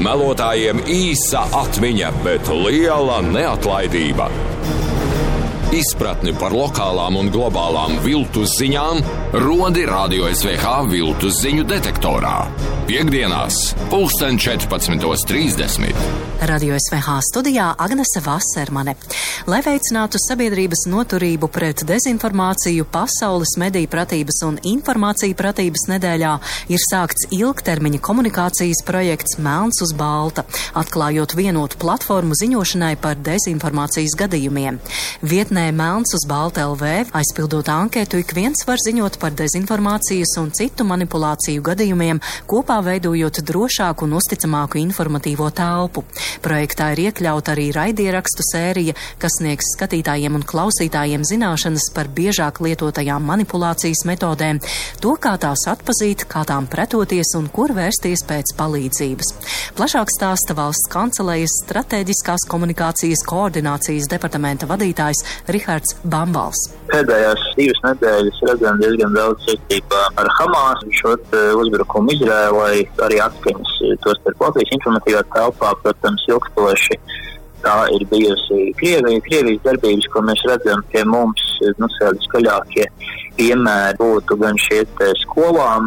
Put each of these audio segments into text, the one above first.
Melotājiem īsa atmiņa, bet liela neatlaidība. Izpratni par lokālām un globālām viltus ziņām rodi Radio SVH viltus ziņu detektorā. Piektdienās, 14:30. Radio SVH studijā Agnese Vasermane. Lai veicinātu sabiedrības noturību pret dezinformāciju, Pasaules mediju pratības un informāciju pratības nedēļā ir sākts ilgtermiņa komunikācijas projekts Melns uz balta, atklājot vienotu platformu ziņošanai par dezinformācijas gadījumiem. Vietnē Melns uz balta LV, aizpildot anketu, ik viens var ziņot par dezinformācijas un citu manipulāciju gadījumiem, kopā veidojot drošāku un uzticamāku informatīvo telpu. Projektā ir iekļauta arī raidierakstu sērija, kas sniegs skatītājiem un klausītājiem zināšanas par biežāk lietotajām manipulācijas metodēm, to, kā tās atpazīt, kā tām pretoties un kur vērsties pēc palīdzības. Plašāk stāsta Valsts kancelējas stratēģiskās komunikācijas koordinācijas departamenta vadītājs Rihards Bambals. Pēdējās 2 nedēļas redzam diezgan daudz saistībā ar Hamas, šo uzbrukumu Izrēlai, arī atskaņas tos par Latvijas informatīvā telpā, protams, ilgstoši. Tā ir bijusi Krievijas darbības, ko mēs redzam pie mums, skaļākie piemēri būtu gan šie skolām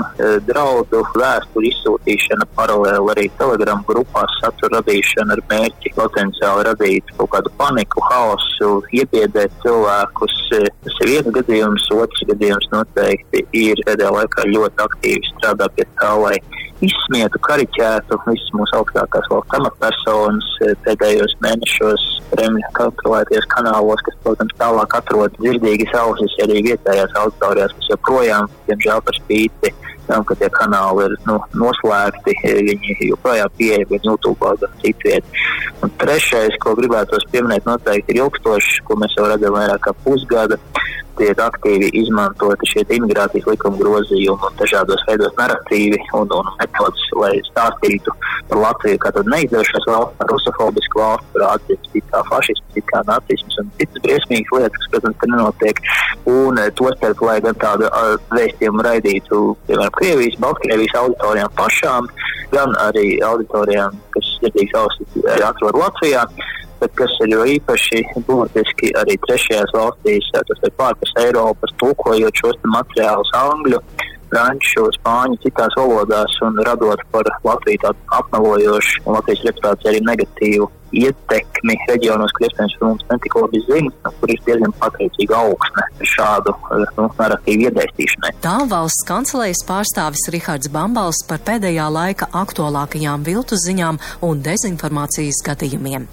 draudu vēsturi izsūtīšana, paralēli arī Telegram grupās satura radīšana ar mērķi potenciāli radīt kaut kādu paniku, haosu, iebiedēt cilvēkus. Tas ir viens gadījums, otrs gadījums noteikti ir pēdējā laikā ļoti aktīvi strādā pie tā, lai izsmietu, kariķētu visas mūsu augstākās valsts amatpersonas pēdējos mēnešos Kremļa kontrolēties kanālos, kas, protams, tālāk atrod dzirdīgas ausis arī vietējās auditorijās, kas joprojām, diemžēl par spīti, ka tie kanāli ir noslēgti, viņi joprojām pieeja YouTube gan citviet. Un trešais, ko gribētos pieminēt, noteikti ir ilgstošs, ko mēs jau redzam vairāk kā pusgada. Tiek aktīvi izmantoti šie imigrācijas likuma grozījumi un dažādos veidos narratīvi un metodas, lai stāstītu par Latviju kā tādu neizdevušos valsts, par rusofobisku valsts, par atzīmes kā fašisms, kā nacisms un citas briesmīgas lietas, kas, protams, ka nenotiek. Un tostarp, lai gan tādu vēstījumu raidītu, piemēram, Krievijas, Baltkrievijas auditorijām pašām, gan arī auditorijām, kas dzirdīgas ausis atrod Latvijā. Bet kas ir jo īpaši būtiski arī trešajās valstīs, tas ir pārpus Eiropas, tulkojot šos materiālus angļu, franču, spāņu, citās valodās un radot par Latviju tādu apmelojošu un Latvijas reputāciju arī negatīvu ietekmi reģionos, kur iespējams par mums netik labi zina, kur ir diezgan pateicīga augsne šādu narratīvu iedēstīšanai. Tā Valsts kancelējas pārstāvis Rihards Bambals par pēdējā laika aktuālākajām viltus ziņām un dezinformācijas gadījumiem.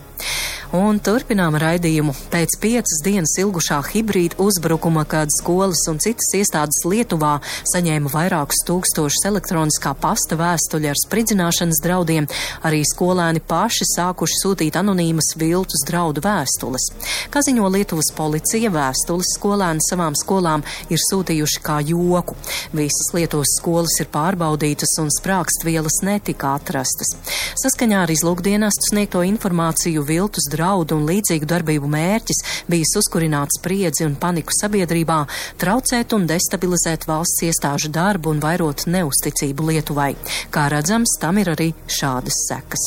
Un turpinām raidījumu. Pēc 5 dienas ilgušā hibrīda uzbrukuma, kad skolas un citas iestādes Lietuvā saņēma vairākus tūkstošus elektroniskā pasta vēstuļu ar spridzināšanas draudiem, arī skolēni paši sākuši sūtīt anonīmas viltus draudu vēstules. Kā ziņo Lietuvas policija, vēstules skolēni savām skolām ir sūtījuši kā joku. Visas Lietuvas skolas ir pārbaudītas un sprākstvielas netika atrastas. Saskaņā ar izlūkdienestu sniegto informāciju viltus draudu un līdzīgu darbību mērķis bijis uzkurināt spriedzi un paniku sabiedrībā, traucēt un destabilizēt valsts iestāžu darbu un vairot neusticību Lietuvai. Kā redzams, tam ir arī šādas sekas.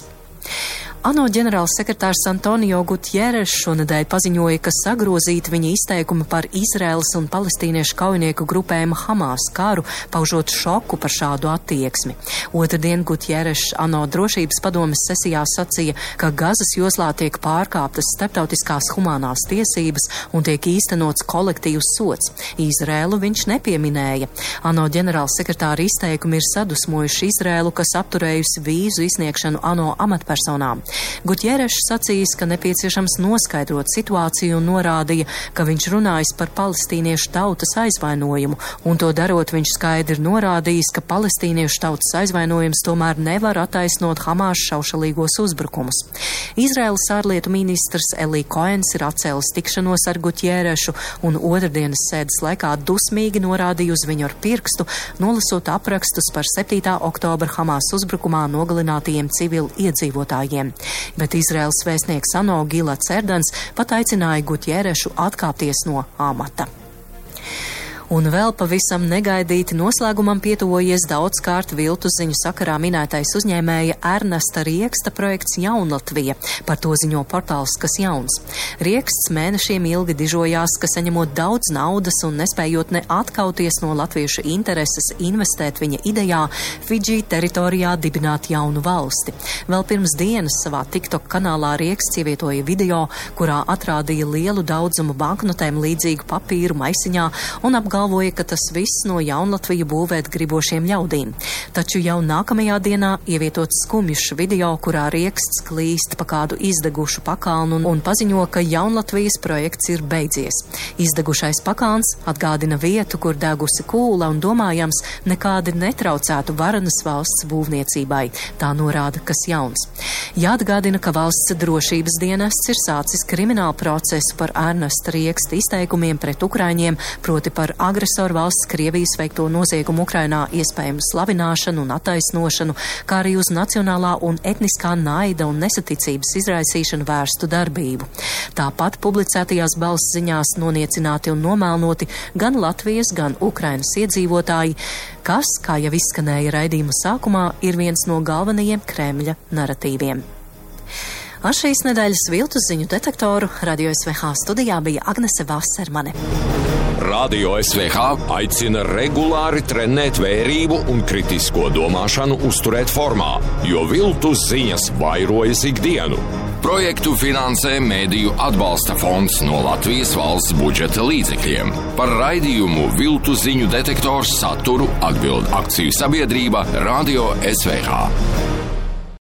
ANO ģenerālsekretārs Antonio Gutjeres šonedēļ paziņoja, ka sagrozīti viņa izteikumi par Izraēlas un palestīniešu kaujinieku grupējumu Hamas karu, paužot šoku par šādu attieksmi. Otrdien Gutjeres ANO drošības padomes sesijā sacīja, ka Gazas joslā tiek pārkāptas starptautiskās humānās tiesības un tiek īstenots kolektīvs sods. Izraēlu viņš nepieminēja. ANO ģenerālsekretāra izteikumi ir sadusmojuši Izraēlu, kas apturējusi vīzu izsniegšanu ANO amatpersonām. Gutjeres sacījis, ka nepieciešams noskaidrot situāciju un norādīja, ka viņš runājis par palestīniešu tautas aizvainojumu, un to darot viņš skaidri norādījis, ka palestīniešu tautas aizvainojums tomēr nevar attaisnot Hamas šaušalīgos uzbrukumus. Izraēlas ārlietu ministrs Eli Koens ir atcēlis tikšanos ar Gutjerešu un otrdienas sēdes laikā dusmīgi norādīja uz viņu ar pirkstu, nolasot aprakstus par 7. oktobra Hamas uzbrukumā nogalinātajiem civili iedzīvotājiem. Bet Izraēlas vēstnieks ANO Gilats Erdans pat aicināja Gutjerešu atkāpties no amata. Un vēl pavisam negaidīti noslēgumam pietuvojies daudzkārt viltus ziņu sakarā minētais uzņēmēja Ernesta Rieksta projekts Jaunlatvija. Par to ziņo portāls Kas jauns. Rieksts mēnešiem ilgi dižojās, ka saņemot daudz naudas un nespējot ne atkauties no latviešu intereses investēt viņa idejā Fidži teritorijā dibināt jaunu valsti. Vēl pirms dienas savā TikTok kanālā Rieksts ievietoja video, kurā atrādīja lielu daudzumu banknotēm līdzīgu papīru maisiņā un apgalvoja, ka tas viss no Jaunlatviju būvēt gribošiem ļaudīm. Taču jau nākamajā dienā ievietots skumjš video, kurā Rieksts klīst pa kādu izdegušu pakalnu un paziņo, ka Jaunlatvijas projekts ir beidzies. Izdegušais pakāns atgādina vietu, kur degusi kūla un domājams nekādi netraucētu varenas valsts būvniecībai. Tā norāda Kas jauns. Jāatgādina, ka valsts drošības dienests ir sācis kriminālu procesu par Ernesta Rieksta izteikumiem pret ukraiņiem, proti par agresoru valsts Krievijas veikto noziegumu Ukrainā iespējamu slavināšanu un attaisnošanu, kā arī uz nacionālā un etniskā naida un nesaticības izraisīšanu vērstu darbību. Tāpat publicētajās balss ziņās noniecināti un nomēlnoti gan Latvijas, gan Ukrainas iedzīvotāji, kas, kā jau izskanēja raidījuma sākumā, ir viens no galvenajiem Kremļa naratīviem. Ar šīs nedēļas viltus ziņu detektoru Radio SVH studijā bija Agnese Vasermane. Radio SVH aicina regulāri trenēt vērību un kritisko domāšanu uzturēt formā, jo viltus ziņas vairojas ikdienu. Projektu finansē Mēdīju atbalsta fonds no Latvijas valsts budžeta līdzekļiem. Par raidījumu viltu ziņu detektors saturu atbild akciju sabiedrība Radio SVH.